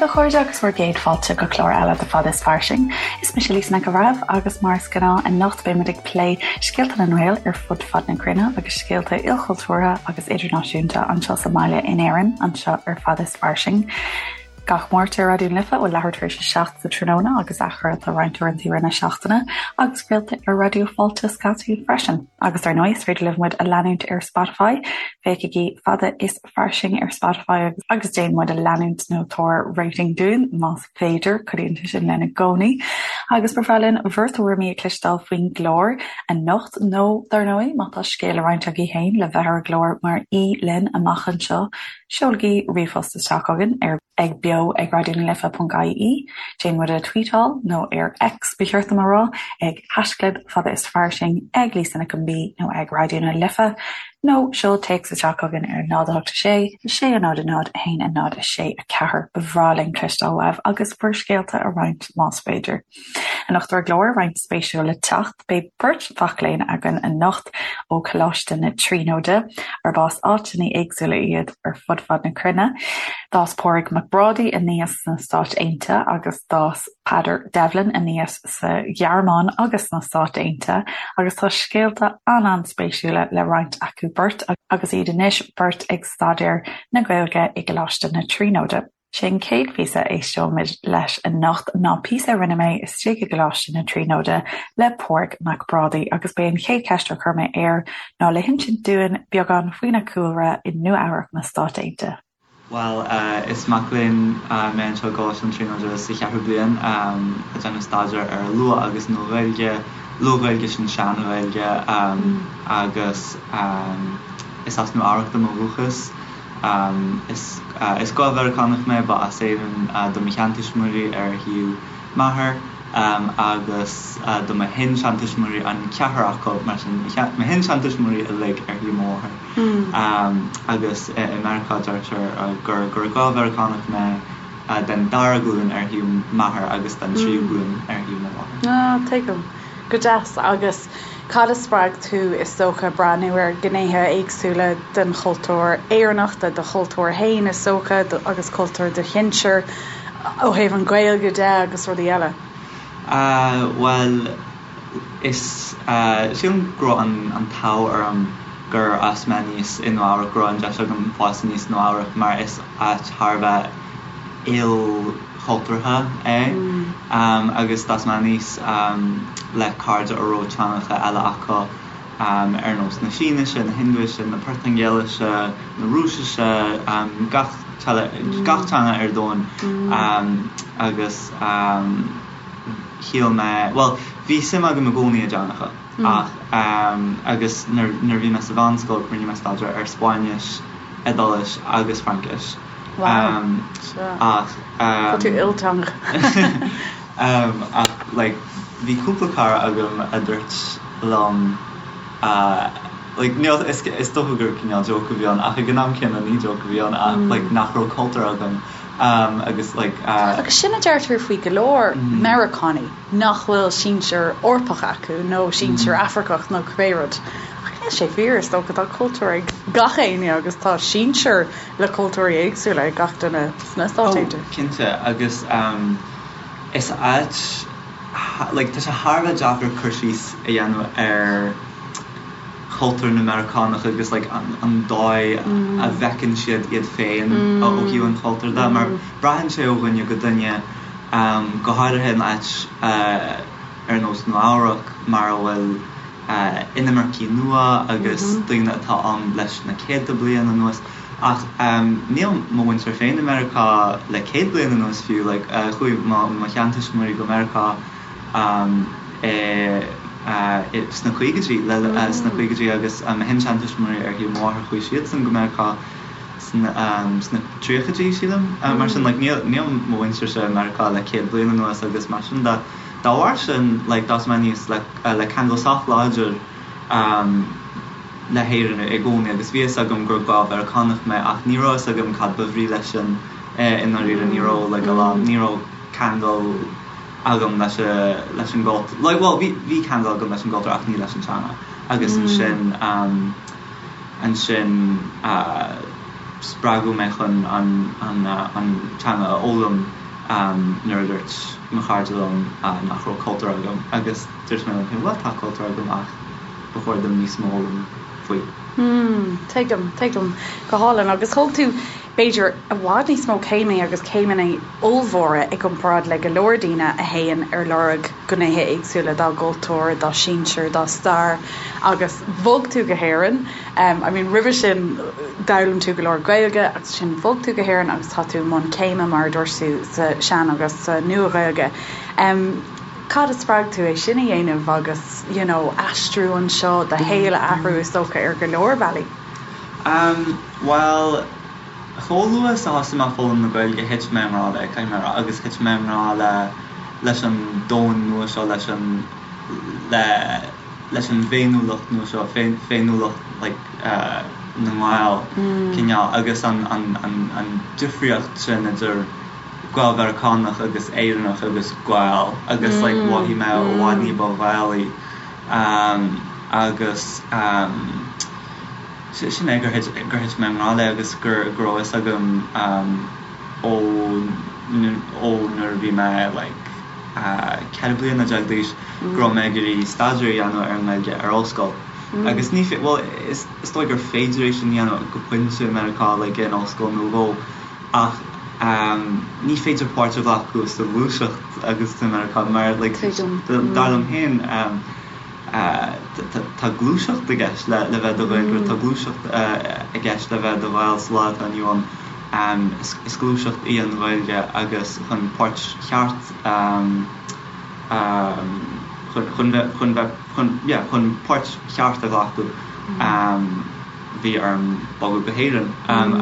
a chairde agus bhur gcéad fáilte go clár eile de Fada is Fairsing. Is mise Lisa Nic an Bhreithimh agus mar is gnáth anocht beidh muid ag plé scéalta na nGael ar fud fad na cruinne agus scéalta ilchultúrtha agus idirnáisiúnta anseo sa mbaile in Éirinn, anseo ar Fada is Fairsing. Gach Máirt ar Raidió na Life ó leathuair tar éis a 7 sa tráthnóna agus athchraolta roinnt uaireanta i rith na seachtaine agus craolta ar Raidió Fáilte scaití freisin. Agus ar ndóigh is féidir libh muid a leanúint ar Spotify, féachaigí Fada is Fairsing ar Spotify agus déan muid a leanúint nó tabhair rating dúinn más féidir, cuidíonn sé sin linn i gcónaí. Agus ba bhreá linn bhur dtuairimí a chloisteáil faoin gclár anocht nó dar ndóigh má tá scéal le roinnt agaibh féin le bheith ar an gclár mar aoi linn amach anseo, Seolaigí ríomhphost isteach chugainn ar ag beo ag raidionalife.ie, déan muid a tweetáil, nó ar X ba cheart dom a rá, ag haischlib fada is fairsing, ag Lisa Nic an B nó ag Raidió na Life, nó seol téacs isteach chugainn ar 0 8 6 6 0 0 1 0 6 4. Ba bhreá linn cloisteáil uaibh agus bhur scéalta a roinnt más féidir. Anocht ar an gclár, roinnt spéisiúil le teacht. Beidh beirt mhac léinn againn anocht ó Choláiste na Tríonóide, arb as áiteanna éagsúla iad ar fud fad na cruinne. D'fhás Pádraig Mac Brádaigh aníos sna Stáit Aontaithe agus d'fhás Peadar Devlin aníos sa Ghearmáin agus sna Stáit Aontaithe agus tá scéalta an-an-spéisiúla le roinnt acu beirt agus iad anois beirt ag staidéar na Gaeilge i gColáiste na Tríonóide. Sé an chéad phíosa a éisteoimid leis anocht ná píosa a rinne mé istigh i gColáiste na Tríonóide le Pádraig Mac Brádaigh agus b'é an chéad cheist a chuir mé air ná le hinsint dúinn beagán faoina chúlra i Nua Eabhrac na Stát Aontaithe. Bhuel, is mac léinn mé anseo i gColáiste na Tríonóide sa cheathrú bliain, ag déanamh staidéar ar Luath agus Nua-Ghaeilge, Luath-Ghaeilge sin Sean-Ghaeilge, agus is as Nua Eabhrac dom ó dhúchas. Is Gael-Mheiriceánach mé, ba as Éirinn do mo sheantuismitheoirí ar thaobh m'athar agus do mo shin-seantuismitheoirí, an ceathrar acu, mar sin, mo shin-seantuismitheoirí uilig ar thaobh mo mháthar. Agus i Meiriceá deirtear gur gur Gael-Mheiriceánach mé den dara glúin ar thaobh m'athar agus den tríú glúin ar thaobh mo mháthar. Ah, tuigim. Go deas. Agus cad a spreag tú, is dócha, breathnú ar ghnéithe éagsúla den chultúr Éireannach, de do chultúr féin, is dócha, agus cultúr do shinsear, ó thaobh an Ghaeilge de agus rudaí eile? Bhuel, is, sílim go raibh an t-ádh orm gur fhás mé aníos i Nua Eabhrac, go raibh an deis agam fás aníos i Nua Eabhrac mar is áit thar a bheith il. chultúrtha é agus d'fhás mé aníos le cairde a raibh teangacha eile acu ar nós na Sínise, na Hindise, na Portaingéilise, na Rúisise, gach gach teanga ar domhan agus shíl mé, bhuel, bhí suim agam i gcónaí i dteangacha ach agus nuair a bhí mé sa mheánscoil rinne mé staidéar ar Spáinnis, Iodáilis agus Fraincis. Wow. Ach. Tá tú ilteangach. Ach like bhí cúpla cara agam a dúirt liom like níl is is dócha gur cineál joke a bhí ann ach ag an am céanna ní joke a bhí ann ach like nach raibh cultúr agam agus like. Agus sin a deirtear faoi go leor Meiriceánaigh nach bhfuil sinsear Eorpach acu nó sinsear Afracach nó cibé rud. Ach níl sé fíor, is dócha, tá cultúr ag gach éinne agus tá sinsear le cultúirí éagsúla ag gach duine sna Stáit Aontaithe. Oh, cinnte, agus is áit, like, tá sé thar a bheith deacair cur síos a dhéanamh ar chultúr na Meiriceánach agus like an dóigh a bhfeiceann siad iad féin ó thaobh an chultúir de, mar braitheann sé ó dhuine go duine, go háirithe in áit ar nós Nua Eabhrac mar a bhfuil inimircigh nua agus daoine atá ann leis na céadta bliain anuas. Ach níl mo mhuintir féin i Meiriceá le 100 bliain anuas fiú. Like chuaigh mo mo sheantuismitheoirí go Meiriceá i sna caogaidí le sna caogaidí agus mo shin-seantuismitheoirí ar thaobh mo mháthar chuaigh siadsan go Meiriceá sna sna tríochaidí sílim. Mar sin like níl níl mo mhuintirse i Meiriceá le 100 bliain anuas agus mar sin de. Dá bharr sin like d'fhás mé aníos le le ceangal sách láidir le hÉirinn i gcónaí agus bhí a fhios agam gur Gael-Mheiriceánach mé ach ní raibh a fhios agam cad ba bhrí leis sin i ndáiríre, ní raibh like a lán, ní raibh ceangal agam leis leis an gcultúr, like bhuel bhí bhí ceangal agam leis an gcultúr ach ní leis an teanga agus ansin ansin. spreagadh mé chun an an teanga a fhoghlaim nuair a dúirt mo chairde liom nach raibh cultúr agam agus dúirt mé liom féin bhuel tá cultúr agam ach ba chóir dom níos mó a fhoghlaim faoi. Hmm, tuigim, tuigim. Go hálainn. Agus thóg tú, b'fhéidir, i bhfad níos mó céimeanna agus céimeanna ollmhóra i gcomparáid le go leor daoine a théann ar lorg gnéithe éagsúla dá gcultúr, dá sinsir, dá stair agus bhog tú go hÉirinn. I mean, roimhe sin d'fhoghlaim tú go leor Gaeilge agus ansin bhog tú go hÉirinn agus tá tú i mbun céime, mar a dúirt tú, sa Sean agus sa Nua-Ghaeilge. Cad a spreag tú é sin a dhéanamh agus, you know, aistriú anseo, do shaol a athrú is dócha ar go leor bealaí? Umm, bhuel, chomh luath is a thosaigh mé ag foghlaim na Gaeilge thit mé i ngrá léi, caithfidh mé a rá, agus thit mé i ngrá le, leis an domhan nua seo, leis an, le, leis an bhféiniúlacht nua seo, féiniúlacht like na nGael, cineál, agus an, an, an, an difríocht sin idir Gael-Mheiriceánach agus Éireannach agus Gael agus like mhothaigh mé i bhfad ní ba Ghaelaí agus sin é gur thit gur thit mé i ngrá léi agus gur go raibh fhios agam ó ó nuair a bhí mé like 14 bliana d'aois go raibh mé ag iarraidh staidéar a dhéanamh ar an nGaeilge ar ollscoil agus ní bhuel is is dóigh gur féidir é sin a dhéanamh go pointe i Meiriceá like in ollscoil nó dhó Ach ní féidir páirt a ghlacadh sa ghluaiseacht agus tú i Meiriceá mar like dar liom féin tá gluaiseacht i gceist le le bheith i do Ghaeilgeoir, tá gluaiseacht i gceist le bheith i do Ghael sa lá atá inniu ann. Is gluaiseacht í an Ghaeilge agus chun páirt cheart chun bheith chun bheith chun yeah chun páirt cheart a ghlacadh bhí orm bogadh go hÉirinn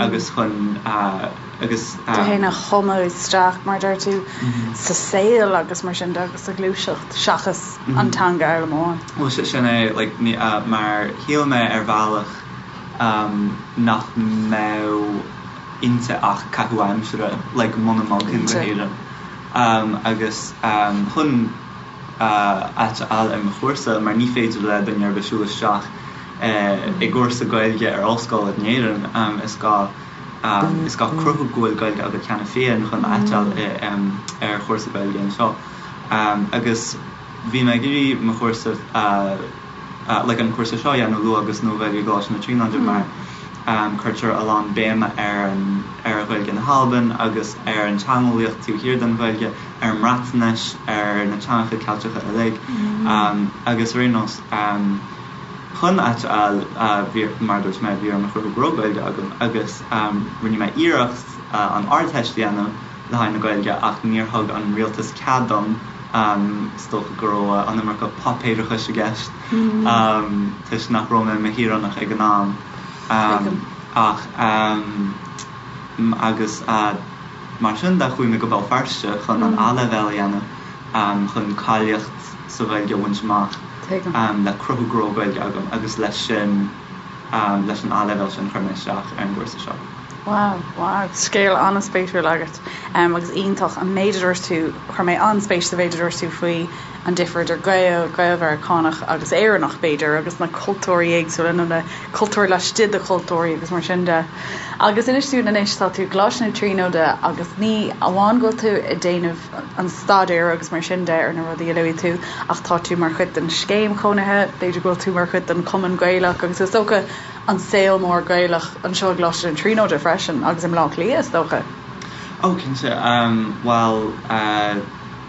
agus chun agus. tú féin a thumadh isteach, mar a deir tú, sa saol agus mar sin de agus sa ghluaiseacht seachas an teanga a fhoghlaim amháin. Bhuel sin é, like, mar shíl mé ar bhealach nach mbeadh inti ach caitheamh aimsire, like, muna mbogfainn go hÉirinn. Agus chun áit a fháil ar mo chúrsa, mar ní féidir le duine ar bith siúl isteach i gcúrsa Gaeilge ar ollscoil in Éirinn, is gá is gá cruthú go bhfuil Gaeilge agat cheana féin chun áit a fháil ar chúrsa Gaeilge anseo. Agus bhí mé ag iarraidh mo chúrsa like an cúrsa seo a dhéanamh, Luath agus Nua-Ghaeilge i gColáiste na Tríonóide mar cuirtear a lán béime ar an ar Ghaeilge na hAlban agus ar an teangeolaíocht taobh thiar den Ghaeilge, ar an mBreatnais, ar na teangacha Ceilteacha uilig agus ar aon nós chun áit a fháil bhí, mar a dúirt mé, bhí orm a chruthú go raibh Gaeilge agam agus rinne mé iarracht an Ardteist a dhéanamh le haghaidh na Gaeilge ach níor thug an rialtas cead dom, is dócha go raibh an iomarca páipéarachais i gceist toisc nach raibh mé i mo shaoránach ag an am ach agus mar sin de chuaigh mé go Béal Feirste chun an A-leibhéal a dhéanamh chun cáilíocht sa Ghaeilge a bhaint amach le cruthú go raibh Gaeilge agam agus leis sin, leis an A-leibhéal sin chuir mé isteach ar an gcúrsa seo. Wow, wow, scéal an-spéisiúil agat agus iontach an méid a dúirt tú, chuir mé an-spéis sa mhéid a dúirt tú faoi an difear idir Gael, Gael-Mheiriceánach agus Éireannach b'fhéidir agus na cultúirí éagsúla nó na cultúir laistigh de chultúirí agus mar sin de. Agus inis dúinn anois, tá tú i gColáiste na Tríonóide agus ní amháin go bhfuil tú ag déanamh an staidéir agus mar sin de ar na rudaí a luaigh tú ach tá tú mar chuid den scéim chónaithe, b'fhéidir go bhfuil tú mar chuid den Chumann Gaelach agus is dócha an saol mór Gaelach anseo i gColáiste na Tríonóide freisin agus i mBleá Cliath is dócha. Ó cinnte, bhuel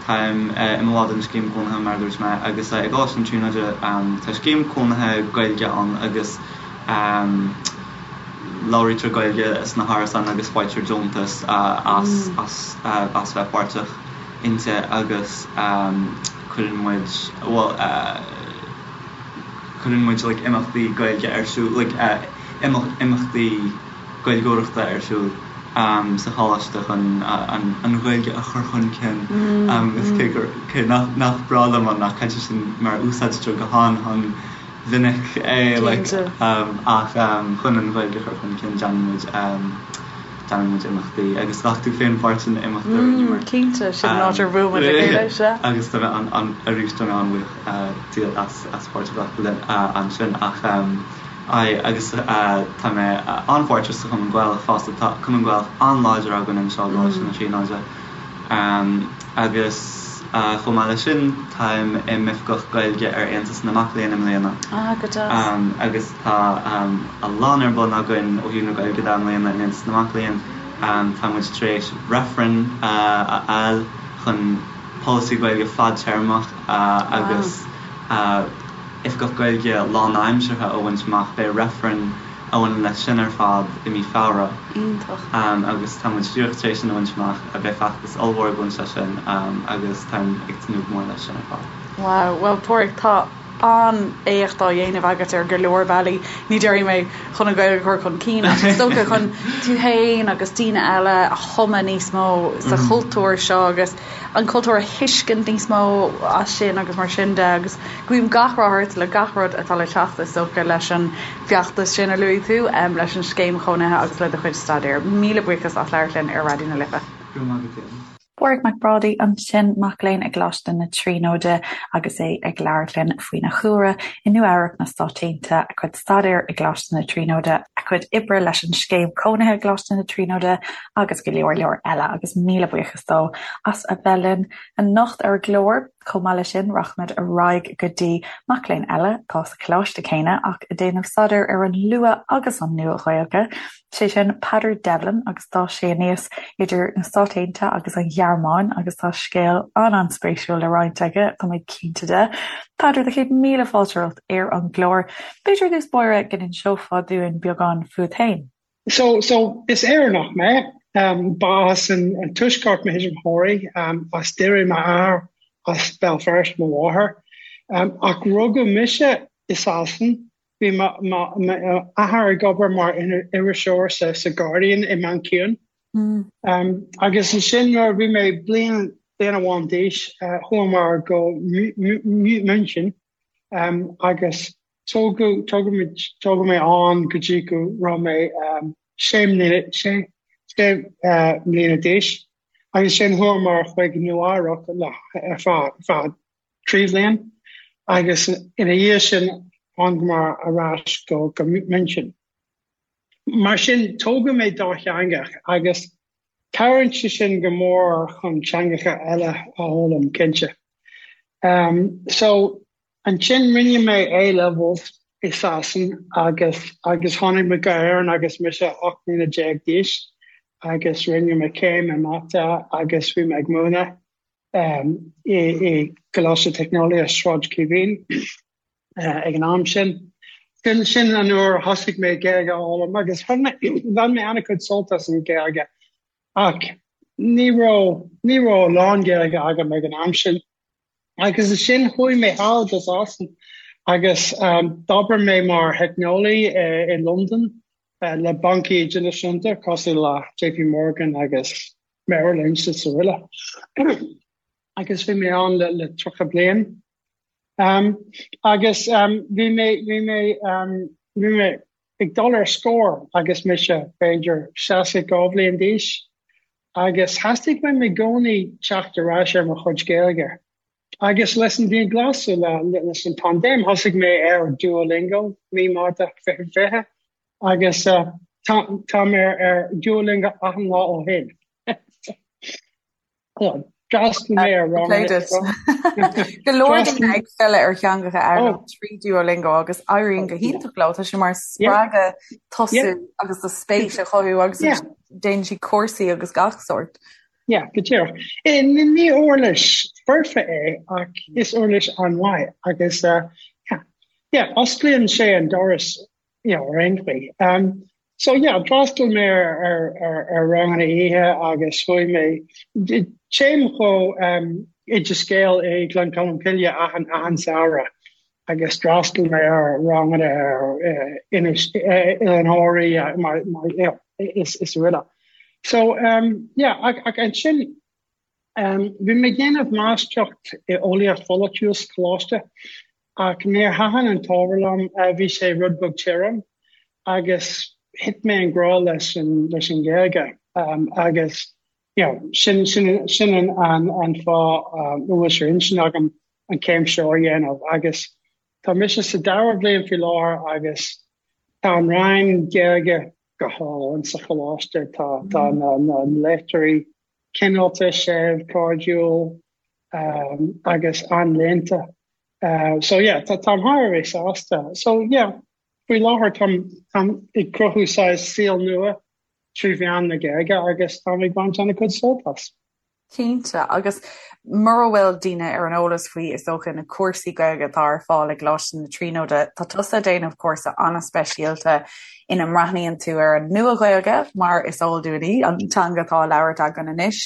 táim i mo bhall den scéim cónaithe mar a dúirt mé agus i gColáiste na Tríonóide tá scéim cónaithe Gaeilge ann agus labhraítear Gaeilge sna hárasáin agus faightear deontas as as as bheith páirteach inti agus cuireann muid, bhuel, cuireann muid like imeachtaí Gaeilge ar siúl, like imeachtaí Gaeilgeoireachta ar siúl sa choláiste chun an Ghaeilge a chur chun cinn agus cé gur, cé nach nach breá liom an nath cainte sin mar úsáidtear go han-han mhinic é like ach chun an Ghaeilge a chur chun cinn déanann muid déanann muid imeachtaí agus ghlac tú féin páirt in imeacht a rinneamar. Cinnte, sin an áit ar bhuail muid le chéile, sea. Agus tá mé an arís tá mé an-bhuíoch díot as as páirt a ghlacadh linn ansin ach. Aye, agus tá mé an-pháirteach sa Chumann Gaelach fosta. Tá Cumann Gaelach an-láidir againn anseo i gColáiste na Tríonóide. Agus chomh maith leis sin, táim i m'oifigeach Gaeilge ar Aontas na Mac Léinn i mbliana. Ah, go deas. Agus tá a lán ar bun againn ó thaobh na Gaeilge de i mbliana in Aontas na Mac Léinn. Tá muid tar éis reifreann a fháil chun polasaí Gaeilge fadtéarmach agus Oifigeach Gaeilge lánaimseartha a bhaint amach. Beidh reifreann a bhaineann leis sin ar fad i mí Feabhra. Iontach. Agus tá muid díreach tar éis sin a bhaint amach. Beidh feachtas ollmhór ag baint leis sin agus táim ag tnúth go mór leis sin ar fad. Wow. Bhuel, Páraic, tá an-éacht á dhéanamh agat ar go leor bealaí. Ní déarfaidh mé chun an Ghaeilge a chur chun cinn ach is dócha chun tú féin agus daoine eile a thumadh níos mó sa chultúr seo agus an cultúr a thuiscint níos mó as sin agus mar sin de agus guím gach rath ort le gach rud atá le teacht is dócha leis an bhfeachtas sin a luaigh tú, leis an scéim chónaithe agus le do chuid staidéir. Míle buíochas as labhairt linn ar Raidió na Life. Go raibh maith agat, Éanna. Pádraig Mac Brádaigh ansin, mac léinn i gColáiste na Tríonóide agus é ag labhairt linn faoina chúlra i Nua Eabhrac na Stáit Aontaithe, a chuid staidéir i gColáiste na Tríonóide, a chuid oibre leis an scéim cónaithe i gColáiste na Tríonóide agus go leor leor eile agus míle buíochas dó as a bheith linn anocht ar an gclár. Chomh maith leis sin, rachaimid ar aghaidh go dtí mac léinn eile atá sa choláiste céanna ach ag déanamh staidéir ar an Luath agus an Nua-Ghaeilge, sé sin Peadar Devlin agus d'fhás sé aníos idir na Stáit Aontaithe agus an Ghearmáin agus tá scéal an-an-spéisiúil le roinnt aige, tá mé cinnte de. Peadar, do chéad míle fáilte romhat ar an gclár. B'fhéidir i dtús báire go n-inseofá dúinn beagán fút féin? So, so, is Éireannach mé. Ba as an Tuaisceart mo thuismitheoirí, as Doire m'athair, as Béal Feirste mo mháthair. Ach rugadh mise i Sasana. Bhí m'athair ag obair mar iriseoir sa Guardian i Mancean. Agus ansin nuair a bhí mé bliain bliain amháin d'aois, chuamar go München agus Tógadh, tógadh muid, tógadh mé ann go dtí go raibh mé sé mbliana, sé, sé mbliana d'aois agus ansin chuamar chuig Nua Eabhrac le, ar feadh, feadh 3 bhliain agus ina dhiaidh sin thángamar ar ais go, go München. Mar sin, tógadh mé dátheangach agus cabhraíonn sé sin go mór chun teangacha eile a fhoghlaim, cinnte. So, Ansin rinne mé A-levels i Sasana agus agus tháinig mé go hÉirinn agus mise 18 mbliana d'aois agus rinne mé céim i Mata agus bhí mé ag múineadh i i gColáiste Teicneolaíochta Sráid Chaoimhín ag an am sin. Sin sin an uair a thosaigh mé Gaeilge a fhoghlaim agus bhain mé bhain mé an-chuid sult as an Ghaeilge ach ní raibh ní raibh a lán Gaeilge agam ag an am sin. Agus ansin chuaigh mé thall go Sasana agus d'obair mé mar theicneolaí i Londain le bancaí idirnáisiúnta cosúil le JP Morgan agus Merrill Lynch is araile. Agus bhí mé ann le le 30 bliain. Agus bhí mé bhí mé bhí mé ag dul ar scor agus mise b'fhéidir 62 bhliain d'aois. Agus theastaigh uaim i gcónaí teacht ar ais ar mo chuid Gaeilge. Agus leis an dianghlasáil, leis an paindéim, thosaigh mé ar Duolingo mí Márta 2020 agus táim ar Duolingo achan lá ó shin. D'fhreastail mé ar ranganna. Go leor daoine ag filleadh ar theangacha a fhoghlaim trí Duolingo agus éiríonn go hiontach leo. Tá sé mar spreagadh tosú agus do spéis a chothú agus déanann siad cúrsaí agus gach sórt. Yeah, go díreach. Ní uirlis foirfe é ach is uirlis an-mhaith agus yeah, yeah, osclaíonn sé an doras you know, ar aon chaoi. Um, so yeah, d'fhreastail mé ar, ar, ar, ar ranganna oíche agus chuaigh mé téim go um, Oideas Gael i Gleann Cholm Cille achan, achan samhradh agus d'fhreastail mé ar ranganna ar uh, Inis, uh, Oileán Thoraí uh, mar, mar, you know, is, is araile. So um, yeah, ach, ach ansin um, bhí mé ag déanamh máistreacht i eolaíocht pholaitiúil sa choláiste Ach níor thaitin an t-ábhar liom, bhí sé rud beag tirim agus thit mé i ngrá leis an leis an Ghaeilge agus you know sin sin sin an an an fáth a bhfuil sé ar intinn agam an chéim seo a dhéanamh agus tá mise sa dara bhliain faoi láthair agus. Tá an rang Gaeilge go hálainn sa choláiste, tá tá na na léachtóirí cineálta, séimh, cairdiúil agus an-léannta. So yeah, tá táim thar a bheith sásta. So yeah, faoi láthair táim táim ag cruthú saghas saol nua trí mheán na Gaeilge agus táim ag baint an-chuid sult as. Cinnte, agus mura bhfuil daoine ar an eolas faoi, is dócha, na cúrsaí Gaeilge atá ar fáil i gColáiste na Tríonóide, tá tusa ag déanamh cúrsa an-speisialta ina mbreathnaíonn tú ar an Nua-Ghaeilge, mar is eol dúinn í, an teanga atá á labhairt againn anois,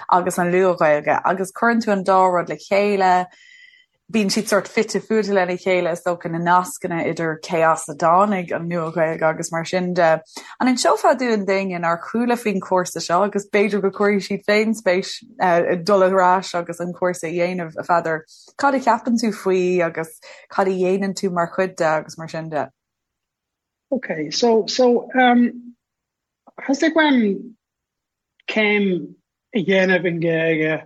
agus an Luath-Ghaeilge, agus cuireann tú an dá rud le chéile. Bíonn siad sórt fite fuaite lena chéile, is dócha, na nascanna idir cé as a dtáinig an Nua-Ghaeilge agus mar sin de. An inseofá dúinn d'éinne nár chuala faoin chúrsa seo agus b'fhéidir go gcuirfidh siad féin spéis i dul ar ais agus an cúrsa a dhéanamh, a Pheadair, cad a cheapann tú faoi agus cad a dhéanann tú mar chuid de agus mar sin de? Ok, so, so, um, theastaigh uaim céim a dhéanamh i nGaeilge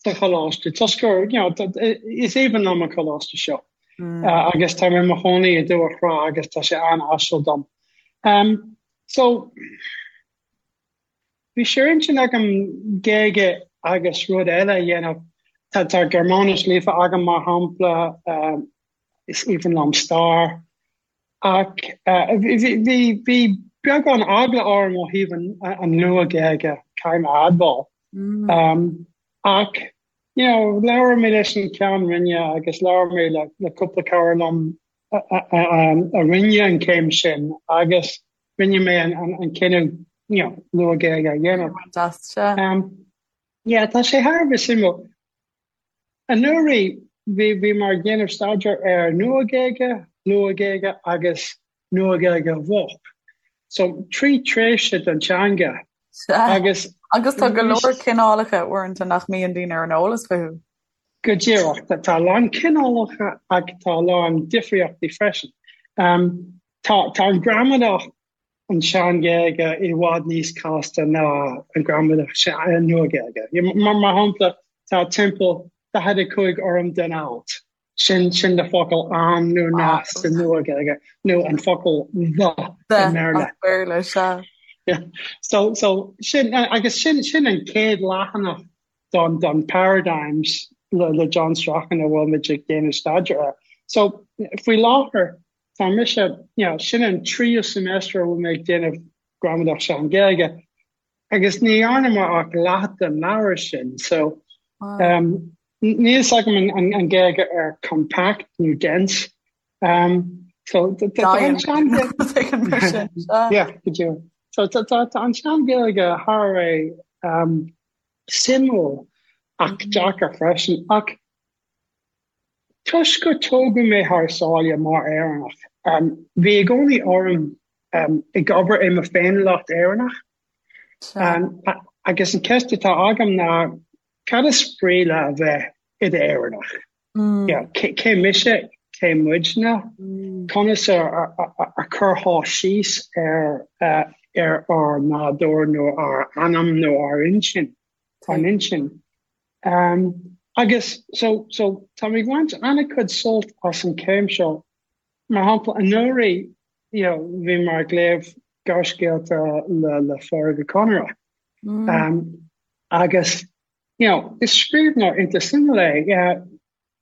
sa choláiste toisc gur, you know, is aoibhinn liom an coláiste seo agus tá mé i mo chónaí i Dumhach Thrá agus tá sé an-áisiúil dom. Um, so, bhí sé ar intinn agam Gaeilge agus rud eile a dhéanamh. Tá, tá Gearmáinis líofa agam mar shampla, um, is aoibhinn liom stair. Ach bhí bhí beagán eagla orm ó thaobh an Luath-Ghaeilge, caithfidh mé a admháil. Ach you know, labhair mé leis an Ceann Roinne agus labhair mé le le cúpla cara liom a rinne an chéim sin agus rinne mé an cinneadh you know, Luath-Ghaeilge a dhéanamh. Yeah, tá sé thar a bheith suimiúil. Anuraidh, bhí bhíomar ag déanamh staidéar ar Nua-Ghaeilge, Luath-Ghaeilge agus Nua-Ghaeilge Mhoch. So, trí tréimhse den teanga Sea. Agus. Agus tá go leor cineálacha uaireanta nach mbíonn daoine ar an eolas fúthu. Go díreach. Tá a lán cineálacha ach tá a lán difríochtaí freisin. Tá tá an gramadach an tSean-Ghaeilge i bhfad níos casta ná an gramadach Nua-Ghaeilge. Mar shampla, tá timpeall 45 fhoirm den alt, sin sin le focal an nó na sa Nua-Ghaeilge, nó an focal the i mBéarla. Béarla, sea. Yeah. So, so sin, agus sin, sin an chéad leathanach don, don Paradigms le, le John Strachan a bhfuil muid ag déanamh staidéar air. So, faoi láthair, Tá mise, you know, sin an tríú semester a bhfuil mé ag déanamh gramadach Sean-Ghaeilge agus ní dhearna mé ach leath den leabhar sin, so um, níl fhios agam an, an, an Gaeilge ar compact nó dense. Um, so tá an Sean-Ghaeilge... Yeah, go deo. So tá, tá, tá an Sean-Ghaeilge thar a bheith um, suimiúil ach deacair freisin ach Toisc gur tógadh mé thar sáile mar Éireannach, bhí i gcónaí orm ag obair i mo féiniúlacht Éireannach. Agus an ceist atá agam ná, cad is brí le a bheith i d'Éireannach? Cé mise? Cé muidne? Conas a chuirfeá síos ar ar ár nádúr nó ár anam nó ár intinn? Ár n-intinn? Um, agus so, so tá mé ag baint an-chuid sult as an chéim seo. Mar shampla, anuraidh, you know, bhí mé ag léamh gearrscéalta le, le Pádraic Ó Conaire. Mm. Um, agus, you know, is scríbhneoir iontach suimiúil é. Yeah,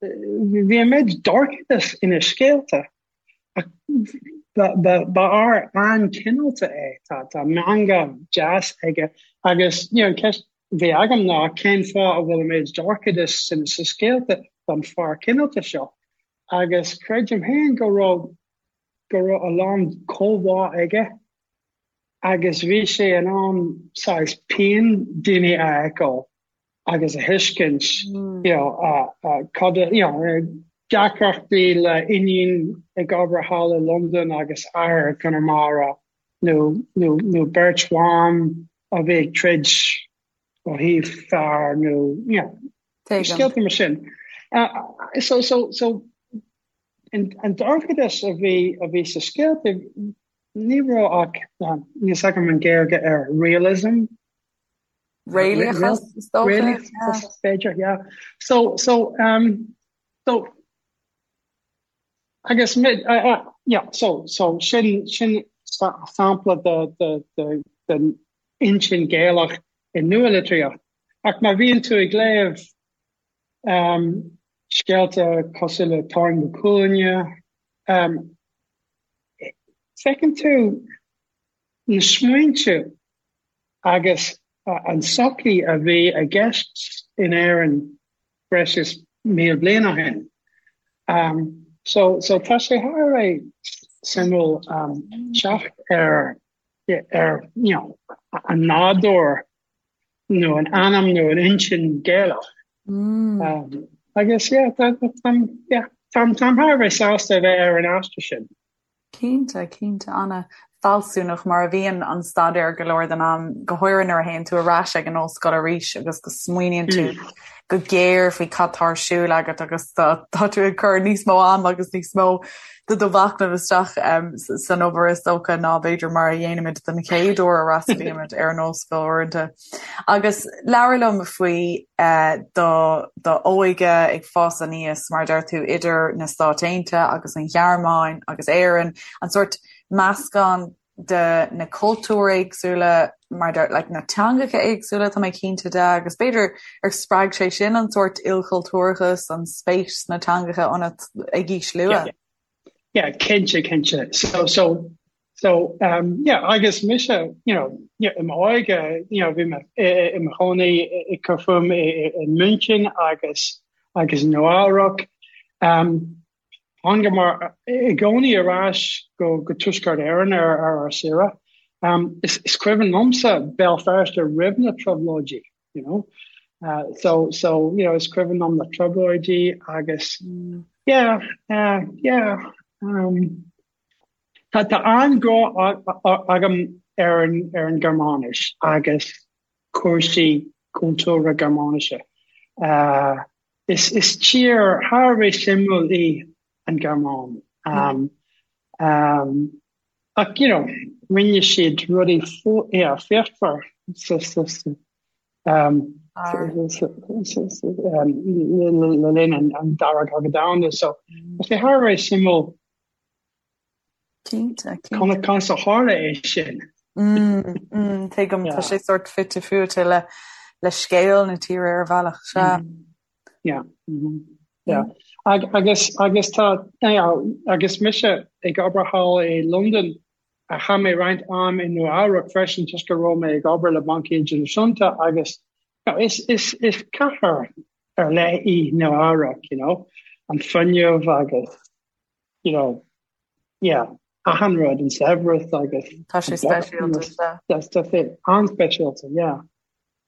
Bhí an méid dorchadas ina scéalta ach ba fhear an-chineálta é. Tá meangadh deas aige agus you know an ceist a bhí agam ná cén fáth a bhfuil an méid dorchadas sin sa scéalta don fear cineálta seo? Agus creidim féin go raibh go raibh a lán comhbhá aige agus bhí sé in ann saghas pian daoine a fheiceáil. agus a thuiscint you know cad you know deacrachtaí le iníon ag obair thall i Londain agus athair i gConamara nó nó nó beirt bhan a bhí ag troid ó thaobh fear nó you know scéalta mar sin. So so so an dorchadas a bhí a bhí sa scéalta ní raibh ach níl fhios agam an Gaeilge ar realism Réalachas, is dócha. Réalachas, b'fhéidir, yeah. So, so, um, so, Agus yeah, so, so sin, sin sampla de, de, de, den intinn Gaelach i nualitríocht. Ach má bhíonn tú ag léamh um, scéalta cosúil le Táin Bó Cúailnge, um, feiceann tú na smaointe agus an sochaí a bhí i gceist in Éirinn breis is 1,000 bliain ó shin. Um, so, so tá sé thar a bheith suimiúil um, teacht ar, ar you know, an nádúr nó an anam nó an intinn Gaelach. Mm. Um, agus yeah, tá, tá, yeah, táim, táim thar a bheith sásta a bheith ar an aistear sin. Cinnte, cinnte, an-fhealsúnach mar a bhíonn an staidéar go leor den am, go háirithe nuair a théann tú ar ais ag an ollscoil arís agus go smaoiníonn tú go géar faoi cad tá ar siúl agat agus tá tú ag cur níos mó am agus níos mó de do mhachnamh isteach san obair is dócha ná b'fhéidir mar a dhéanaimid den chéad uair a fhreastalaímid ar an ollscoil uaireanta. Agus labhair liom faoi do d'óige ag fás aníos, mar a deir tú, idir na Stáit Aontaithe agus an Ghearmáin agus Éirinn, an sórt meascán de na cultúir éagsúla, mar deir, like, na teangacha éagsúla, tá mé cinnte de, agus b'fhéidir ar spreag sé sin an sórt ilchultúrachas, an spéis sna teangacha ionat ag aois luath? Yeah, cinnte, cinnte. So, so, so, um, yeah, agus mise, you know, yeah, i m'óige, you know, bhí mé i mo chónaí ag cur fúm i München agus agus i Nua-Eabhrac. Um, thángamar i gcónaí ar ais go go Tuaisceart Éireann ar ar ár saoire. Um, is, is cuimhin liomsa Béal Feirste roimh na trioblóidí. you know. Uh, so, so, you know, is cuimhin liom na trioblóidí agus, yeah, uh, yeah, um, tá, tá an-ghrá agam ar an, ar an Ghearmáinis agus cúrsaí cultúrtha Gearmáinise. Uh, is, is tír thar a bheith suimiúil í an Ghearmáin. Um, um, Ach, you know, rinne siad rudaí yeah, fíochmhar sa, sa, sa, um, sa, sa, sa, um, le linn an, an Dara Cogadh Domhanda. So, tá sé thar a bheith suimiúil Cinnte, cinnte. conas a tharla é sin. Mm, mm, tuigim, tá sé sórt fite fuaite le, le scéal na tíre ar bhealach, sea. Yeah. Mm-hmm. Yeah. Ag, agus, agus tá, yeah, agus mise ag obair thall i Londain, a chaith mé roinnt am i Nua Eabhrac freisin toisc go raibh mé ag obair le Banc Idirnáisiúnta agus you know, is, is, is cathair ar leith í Nua Eabhrac, you know, an fuinneamh agus, you know, yeah, achan rud, an saibhreas agus Tá sé speisialta, sea. Tá sé an-speisialta, yeah.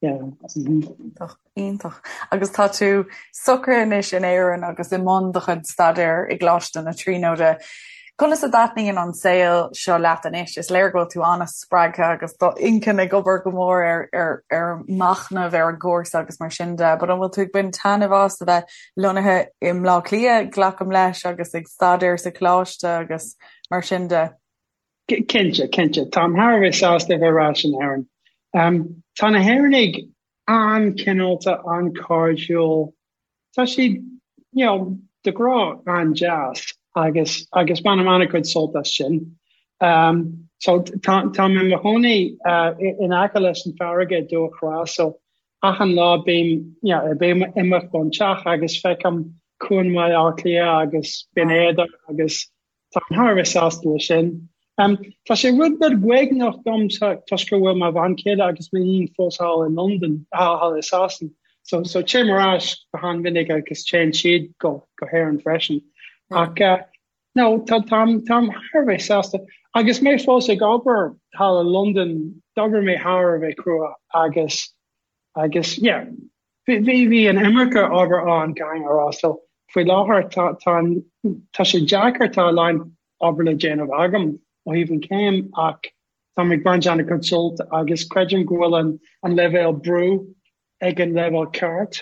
Yeah. Iontach, iontach. Agus tá tú socraithe anois in Éirinn agus i mbun do chuid staidéir i gColáiste na Tríonóide. Conas a dtaitníonn an saol seo leat anois? Is léir go bhfuil tú an-spreagtha agus do inchinn ag obair go mór ar, ar, ar machnamh ar an gcúrsa agus mar sin de, but an bhfuil tú ag baint taitneamh as a bheith lonnaithe i mBleá Cliath, glacaim leis, agus ag staidéar sa choláiste agus mar sin de? Cinnte, cinnte. Táim thar a bheith sásta a bheith ar ais in Éirinn. Tá na hÉireannaigh an-chineálta, an-chairdiúil. Tá siad, you know, de ghnáth an-deas agus agus bainim an-chuid sult as sin. So tá táim i mo chónaí in aice leis an farraige i Dumhach Thrá, so achan lá bím, you know, bím ag imeacht ón teach agus feicim Cuan Bhaile Átha Cliath agus Binn Éadair agus Táim thar a bheith sásta leis sin. Tá sé rud beag uaigneach dom toisc go bhfuil mo bhean chéile agus m'iníon fós thall i Londain, thall i Sasain. So, so téim ar ais go han-mhinic agus téann siad go, go hÉirinn freisin. Ach uh, no, tá, táim, táim thar a bheith sásta. Agus mé fós ag obair thall i Londain, d'obair mé thar a bheith crua agus, agus, yeah, Bhí, bhí an iomarca obair ann, caithfidh mé a rá. So, faoi láthair, tá, tá an, tá sé deacair, tá a lán obair le déanamh agam ó thaobh an chéim ach táim ag baint an-chuid sult agus creidim go bhfuil an, an leibhéal brú ag an leibhéal ceart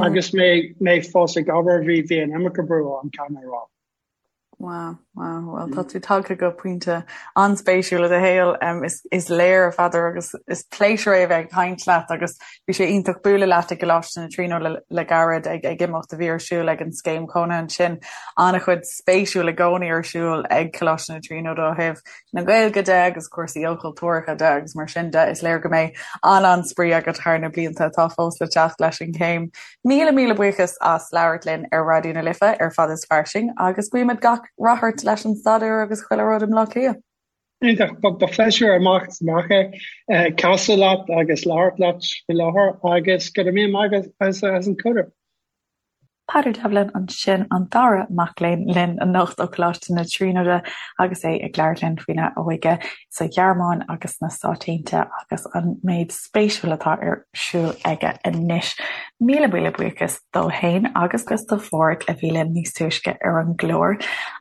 agus mé, mé fós ag obair, bhí, bhí an iomarca brú ann, caithfidh mé a rá. Wow, wow, bhuel tá tú tagtha go pointe an-spéisiúil i do shaol. Is, is léir, a Pheadair, agus is pléisiúr é a bheith ag caint leat agus bhí sé iontach bualadh leat i gColáiste na Tríonóide le, le gairid ag, ag imeacht a bhí ar siúl ag an scéim chónaithe ansin. An-chuid spéisiúil i gcónaí ar siúl ag Coláiste na Tríonóide ó thaobh na Gaeilge de agus cúrsaí ilchultúrtha de agus mar sin de. Is léir go mbeidh an-an-spraoi agat thar na blianta atá fós le teacht leis an chéim. Míle míle buíochas as labhairt linn ar Raidió na Life ar Fad is Fairsing agus guímid gach rath ort leis an staidéar agus chuile rud i mBleá Cliath. Iontach, ba phléisiúr amach is amach é casadh leat agus labhairt leat faoi láthair agus go raibh míle maith agat as an cuireadh. Peadar Devlin ansin, an dara mac léinn linn anocht ó Choláiste na Tríonóide agus é ag labhairt linn faoina óige sa Ghearmáin agus sna Stáit Aontaithe agus an méid spéisiúil atá ar siúl aige anois. Míle míle buíochas dó fhéin agus do Pháraic a bhí linn níos túisce ar an gclár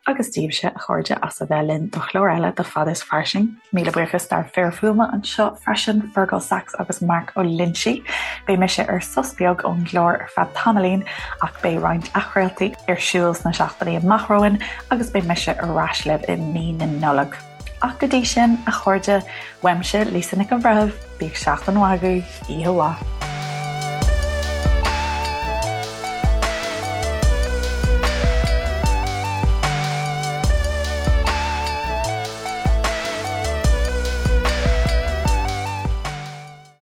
agus daoibhse, a chairde, as a bheith linn do chlár eile de Fad is Fairsing. Míle buíochas dár bhfir fuaime anseo freisin, Fergal Sachs agus Mark Ó Loinsigh. Beidh mise ar sos beag ón gclár ar feadh tamaillín ach beidh roinnt athchraoltaí ar siúl sna seachtainí amach romhainn agus beidh mise ar ais libh i mí na Nollag. Ach go dtí sin, a chairde, uaimse, Lisa Nic an Bhreithimh, bíodh seachtain mhaith agaibh, oíche mhaith.